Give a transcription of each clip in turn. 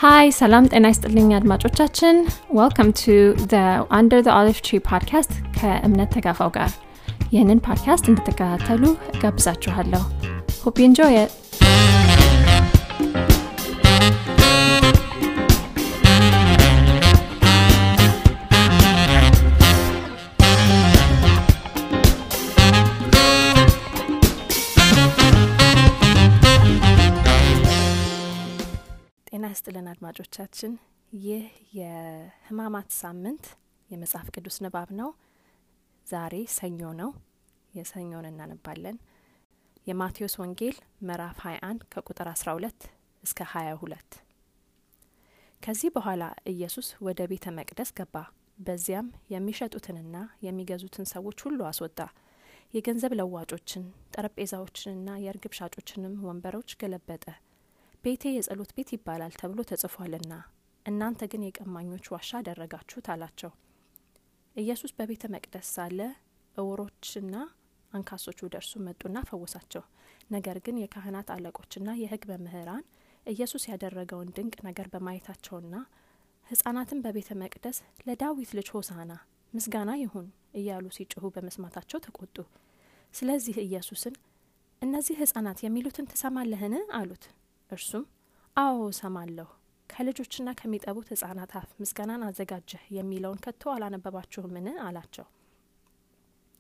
Hi, salam ጤና ይስጥልኝ አድማጮቻችን. Welcome to the Under the Olive Tree podcast ከእምነት ተጋፋው ጋር. ይህንን ፖድካስት እንድትከታተሉ ጋብዛችኋለሁ. Hope you enjoy it. ጤና ይስጥልን አድማጮቻችን. ይህ የህማማት ሳምንት የመጽሐፍ ቅዱስ ንባብ ነው. ዛሬ ሰኞ ነው. የሰኞን እናነባለን. የማቴዎስ ወንጌል ምዕራፍ 21 ከቁጥር 12 እስከ 22. ከዚህ በኋላ ኢየሱስ ወደ ቤተ መቅደስ ገባ. በዚያም የሚሸጡትንና የሚገዙትን ሰዎች ሁሉ አስወጣ. የገንዘብ ለዋጮችን፣ ጠረጴዛዎችንና የርግብ ሻጮችንም ወንበሮች ገለበጠ. ቤቴ የጸሎት ቤት ይባላል ተብሎ ተጽፏልና እናንተ ግን የቀማኞች ዋሻ አደረጋችሁት አላቸው። ኢየሱስ በቤተ መቅደስ ሳለ እውሮችና አንካሶች ወደ እርሱ መጡና ፈወሳቸው። ነገር ግን የካህናት አለቆችና የሕግ መምህራን ኢየሱስ ያደረገውን ድንቅ ነገር በማየታቸውና ሕፃናትን በቤተ መቅደስ ለዳዊት ልጅ ሆሳዕና ምስጋና ይሁን እያሉ ሲጮሁ በመስማታቸው ተቆጡ። ስለዚህ ኢየሱስን እነዚህ ሕፃናት የሚሉትን ትሰማለህን አሉት። እርሱም አዎ ሰማለሁ፣ ከልጆችና ከሚጠቡት ሕፃናት አፍ ምስጋናን አዘጋጀህ የሚለውን ከቶ አላነበባችሁምን አላቸው።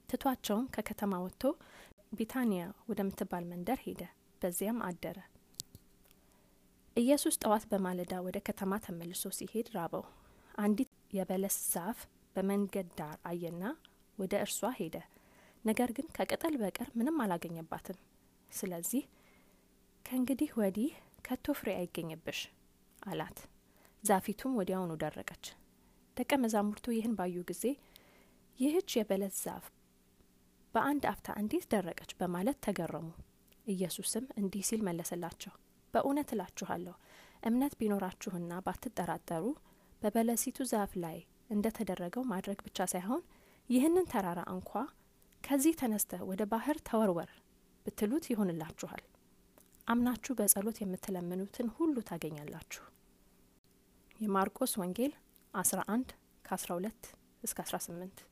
ትቷቸውም ከከተማ ወጥቶ ቢታንያ ወደምትባል መንደር ሄደ። በዚያም አደረ። ኢየሱስ ጠዋት በማለዳ ወደ ከተማ ተመልሶ ሲሄድ ራበው። አንዲት የበለስ ዛፍ በመንገድ ዳር አየና ወደ እርሷ ሄደ። ነገር ግን ከቅጠል በቀር ምንም አላገኘባትም። ስለዚህ ከእንግዲህ ወዲህ ከቶ ፍሬ አይገኝብሽ አላት። ዛፊቱም ወዲያውኑ ደረቀች። ደቀ መዛሙርቱ ይህን ባዩ ጊዜ ይህች የበለስ ዛፍ በአንድ አፍታ እንዴት ደረቀች በማለት ተገረሙ። ኢየሱስም እንዲህ ሲል መለሰላቸው፣ በእውነት እላችኋለሁ እምነት ቢኖራችሁና ባትጠራጠሩ በበለሲቱ ዛፍ ላይ እንደ ተደረገው ማድረግ ብቻ ሳይሆን ይህንን ተራራ እንኳ ከዚህ ተነስተህ ወደ ባህር ተወርወር ብትሉት ይሆንላችኋል። አምናችሁ በጸሎት የምትለምኑትን ሁሉ ታገኛላችሁ። የማርቆስ ወንጌል 11 ከ12 እስከ 18።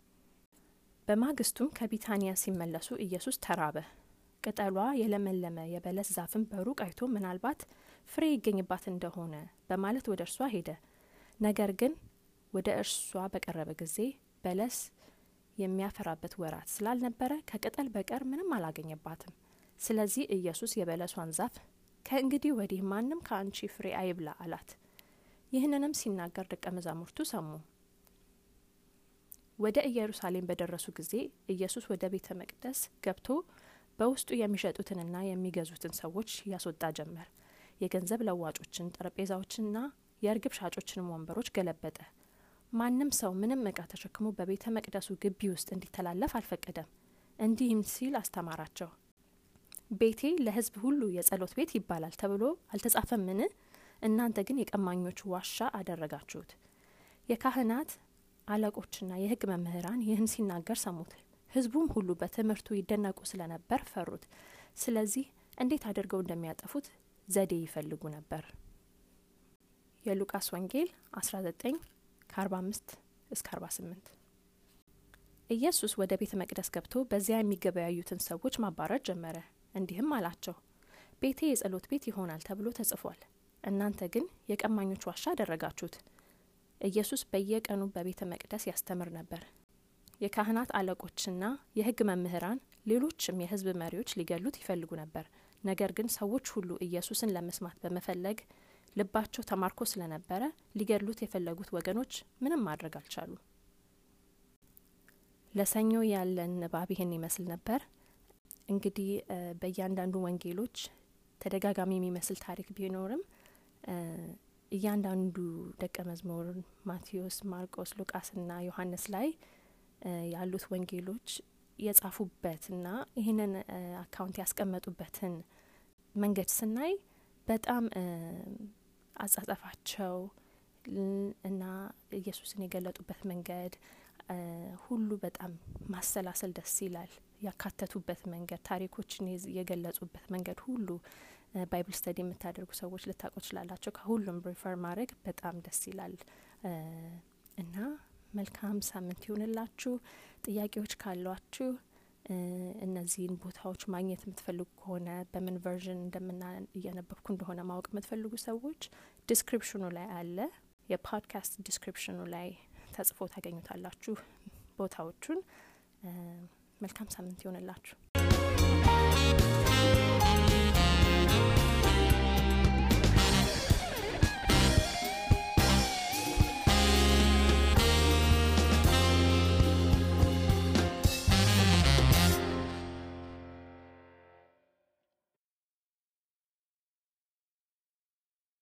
በማግስቱም ከቢታንያ ሲመለሱ ኢየሱስ ተራበ። ቅጠሏ የለመለመ የበለስ ዛፍን በሩቅ አይቶ ምናልባት ፍሬ ይገኝባት እንደሆነ በማለት ወደ እርሷ ሄደ። ነገር ግን ወደ እርሷ በቀረበ ጊዜ በለስ የሚያፈራበት ወራት ስላልነበረ ከቅጠል በቀር ምንም አላገኘባትም። ስለዚህ ኢየሱስ የበለሷን ዛፍ ከእንግዲህ ወዲህ ማንም ከአንቺ ፍሬ አይብላ አላት። ይህንንም ሲናገር ደቀ መዛሙርቱ ሰሙ። ወደ ኢየሩሳሌም በደረሱ ጊዜ ኢየሱስ ወደ ቤተ መቅደስ ገብቶ በውስጡ የሚሸጡትንና የሚገዙትን ሰዎች ያስወጣ ጀመር። የገንዘብ ለዋጮችን፣ ጠረጴዛዎችንና የርግብ ሻጮችንም ወንበሮች ገለበጠ። ማንም ሰው ምንም ዕቃ ተሸክሞ በቤተ መቅደሱ ግቢ ውስጥ እንዲተላለፍ አልፈቀደም። እንዲህም ሲል አስተማራቸው። ቤቴ ለሕዝብ ሁሉ የጸሎት ቤት ይባላል ተብሎ አልተጻፈምን? እናንተ ግን የቀማኞች ዋሻ አደረጋችሁት። የካህናት አለቆችና የሕግ መምህራን ይህን ሲናገር ሰሙት። ሕዝቡም ሁሉ በትምህርቱ ይደነቁ ስለነበር ፈሩት። ስለዚህ እንዴት አድርገው እንደሚያጠፉት ዘዴ ይፈልጉ ነበር። የሉቃስ ወንጌል 19 ከ45 እስከ 48። ኢየሱስ ወደ ቤተ መቅደስ ገብቶ በዚያ የሚገበያዩትን ሰዎች ማባረር ጀመረ። እንዲህም አላቸው፣ ቤቴ የጸሎት ቤት ይሆናል ተብሎ ተጽፏል፣ እናንተ ግን የቀማኞች ዋሻ አደረጋችሁት። ኢየሱስ በየቀኑ በቤተ መቅደስ ያስተምር ነበር። የካህናት አለቆችና የሕግ መምህራን ሌሎችም የሕዝብ መሪዎች ሊገሉት ይፈልጉ ነበር። ነገር ግን ሰዎች ሁሉ ኢየሱስን ለመስማት በመፈለግ ልባቸው ተማርኮ ስለነበረ ሊገሉት የፈለጉት ወገኖች ምንም ማድረግ አልቻሉ። ለሰኞ ያለን ንባብ ይህን ይመስል ነበር። እንግዲህ በእያንዳንዱ ወንጌሎች ተደጋጋሚ የሚመስል ታሪክ ቢኖርም እያንዳንዱ ደቀ መዝሙር ማቴዎስ፣ ማርቆስ፣ ሉቃስና ዮሐንስ ላይ ያሉት ወንጌሎች የጻፉበትና ይህንን አካውንት ያስቀመጡበትን መንገድ ስናይ በጣም አጻጻፋቸው እና ኢየሱስን የገለጡበት መንገድ ሁሉ በጣም ማሰላሰል ደስ ይላል። ያካተቱበት መንገድ፣ ታሪኮችን የገለጹበት መንገድ ሁሉ ባይብል ስተዲ የምታደርጉ ሰዎች ልታውቁ ትችላላችሁ። ከሁሉም ሪፈር ማድረግ በጣም ደስ ይላል። እና መልካም ሳምንት ይሁንላችሁ። ጥያቄዎች ካሏችሁ እነዚህን ቦታዎች ማግኘት የምትፈልጉ ከሆነ በምን ቨርዥን እያነበብኩ እንደሆነ ማወቅ የምትፈልጉ ሰዎች ዲስክሪፕሽኑ ላይ አለ። የፖድካስት ዲስክሪፕሽኑ ላይ ተጽፎ ታገኙታላችሁ ቦታዎቹን። መልካም ሳምንት ይሁንላችሁ።